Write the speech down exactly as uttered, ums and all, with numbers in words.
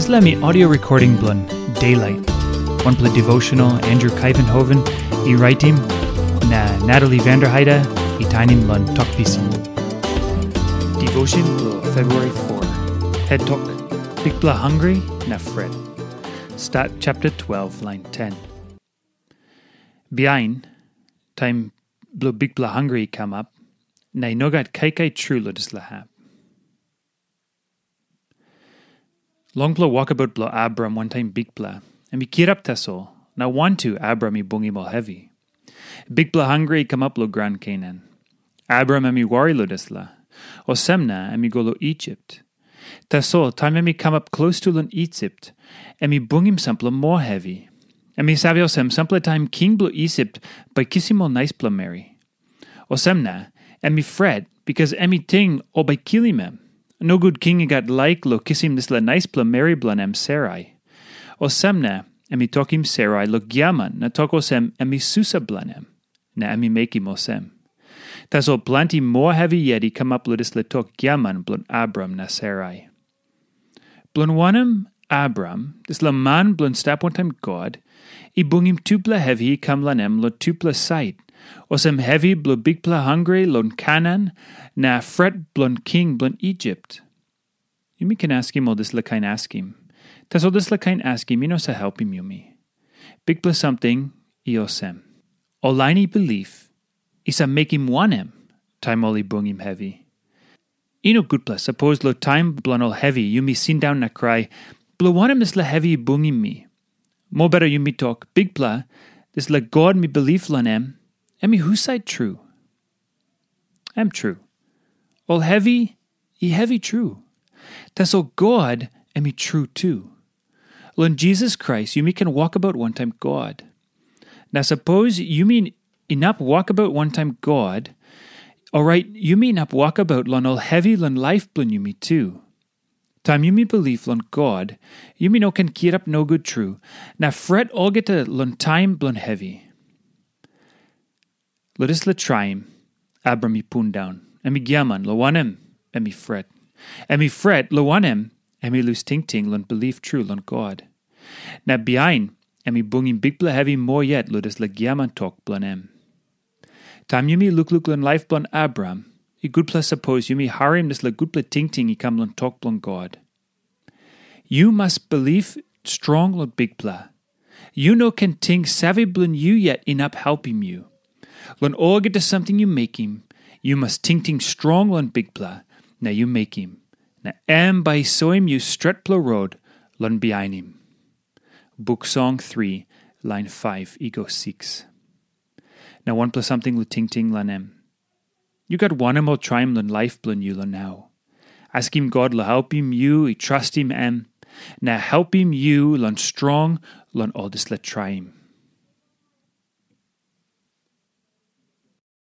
Dispela mi audio recording bilong Daylight, wanpela devotional Andrew Kaivenhoven i raitim, na Natalie Vanderheide i tainim long Tok Pisin. Devotion bilong February four. Head Tok, Bikpela Hungry na Fret. Stat chapter twelve, line ten. Bihain, taim bilong Bikpela hangre i kamap, na i no gat kaikai tru long dispela hap. Longpela wokabaut bilong Abraham wantaim Bikpela, em i kirap tasol, na wantu Abraham i bungim ol hevi. Bikpela hangre i kamap long graun Kenan. Abraham em i wari long dispela. Olsem na em i go long Isip. Tasol taim em i kamap klostu long Isip, em i bungim sampela moa hevi. Em i save olsem, sampela taim king bilong Isip bai kisim ol naispela meri. Olsem na, em i fret, bikas em i ting ol bai kilim em. Nogut king i gat laik long kisim dispela naispela meri bilong em Sarai. Olsem na, em i tokim Sarai long giaman na tok olsem em i susa bilong em, na em i mekim olsem. Tasol planti moa hevi yet i kamap long dispela tok giaman bilong Abraham na Sarai. Bilong wanem, Abraham, dispela man bilong stap wantaim God, i bungim tupela hevi i kam long em long tupela sait, olsem hevi bilong bikpela hangre long Kenan, na fret bilong king bilong Isip. Yumi ken askim ol dispela kain askim. Tasol dispela kain askim i no save helpim yumi. Bikpela samting i olsem. Ol lain i bilip, i save mekim wanem taim ol i bungim hevi? I no gutpela, sapos long taim bilong ol hevi yumi sindaun na krai, "Bilong wanem dispela hevi i bungim mi?" Mobeta yumi tok, "Bikpela, dispela God mi bilip long em, em i husat tru?" Em tru. Ol hevi i hevi tru. Tasol God em i tru tu. Long Jisas Krais yumi ken wokabaut wantaim God. Na sapos yumi inap wokabaut wantaim God, orait yumi inap wokabaut long ol hevi long laip bilong yumi tu. Taim yumi bilip long God, yumi no ken kirap nogut tru, na fret olgeta long taim bilong hevi. Long dispela traim, Abraham i pundaun, em i giaman, long wanem, em i fret. Em i fret, long wanem, em i lus tingting long bilip tru long God. Na bihain, em i bungim bikpela hevi moa yet long dispela giaman tok bilong em. Taim yumi lukluk long laip bilong Abraham, i gutpela sapos yumi harim dispela gutpela tingting i kam long tok bilong God. Yu mas bilip strong long Bikpela. Yu no ken ting save bilong yu yet inap helpim yu. Long olgeta samting yu mekim, yu mas tingting strong long Bikpela, na yu mekim. Na em bai i soim yu stretpela rot long bihainim. Buk Song three, lain five i go six. Na wanpela samting long tingting long em. Yu gat wanem ol traim long laip bilong yu long nau? Askim God long helpim yu i trastim em, na helpim yu long strong long ol dispela traim.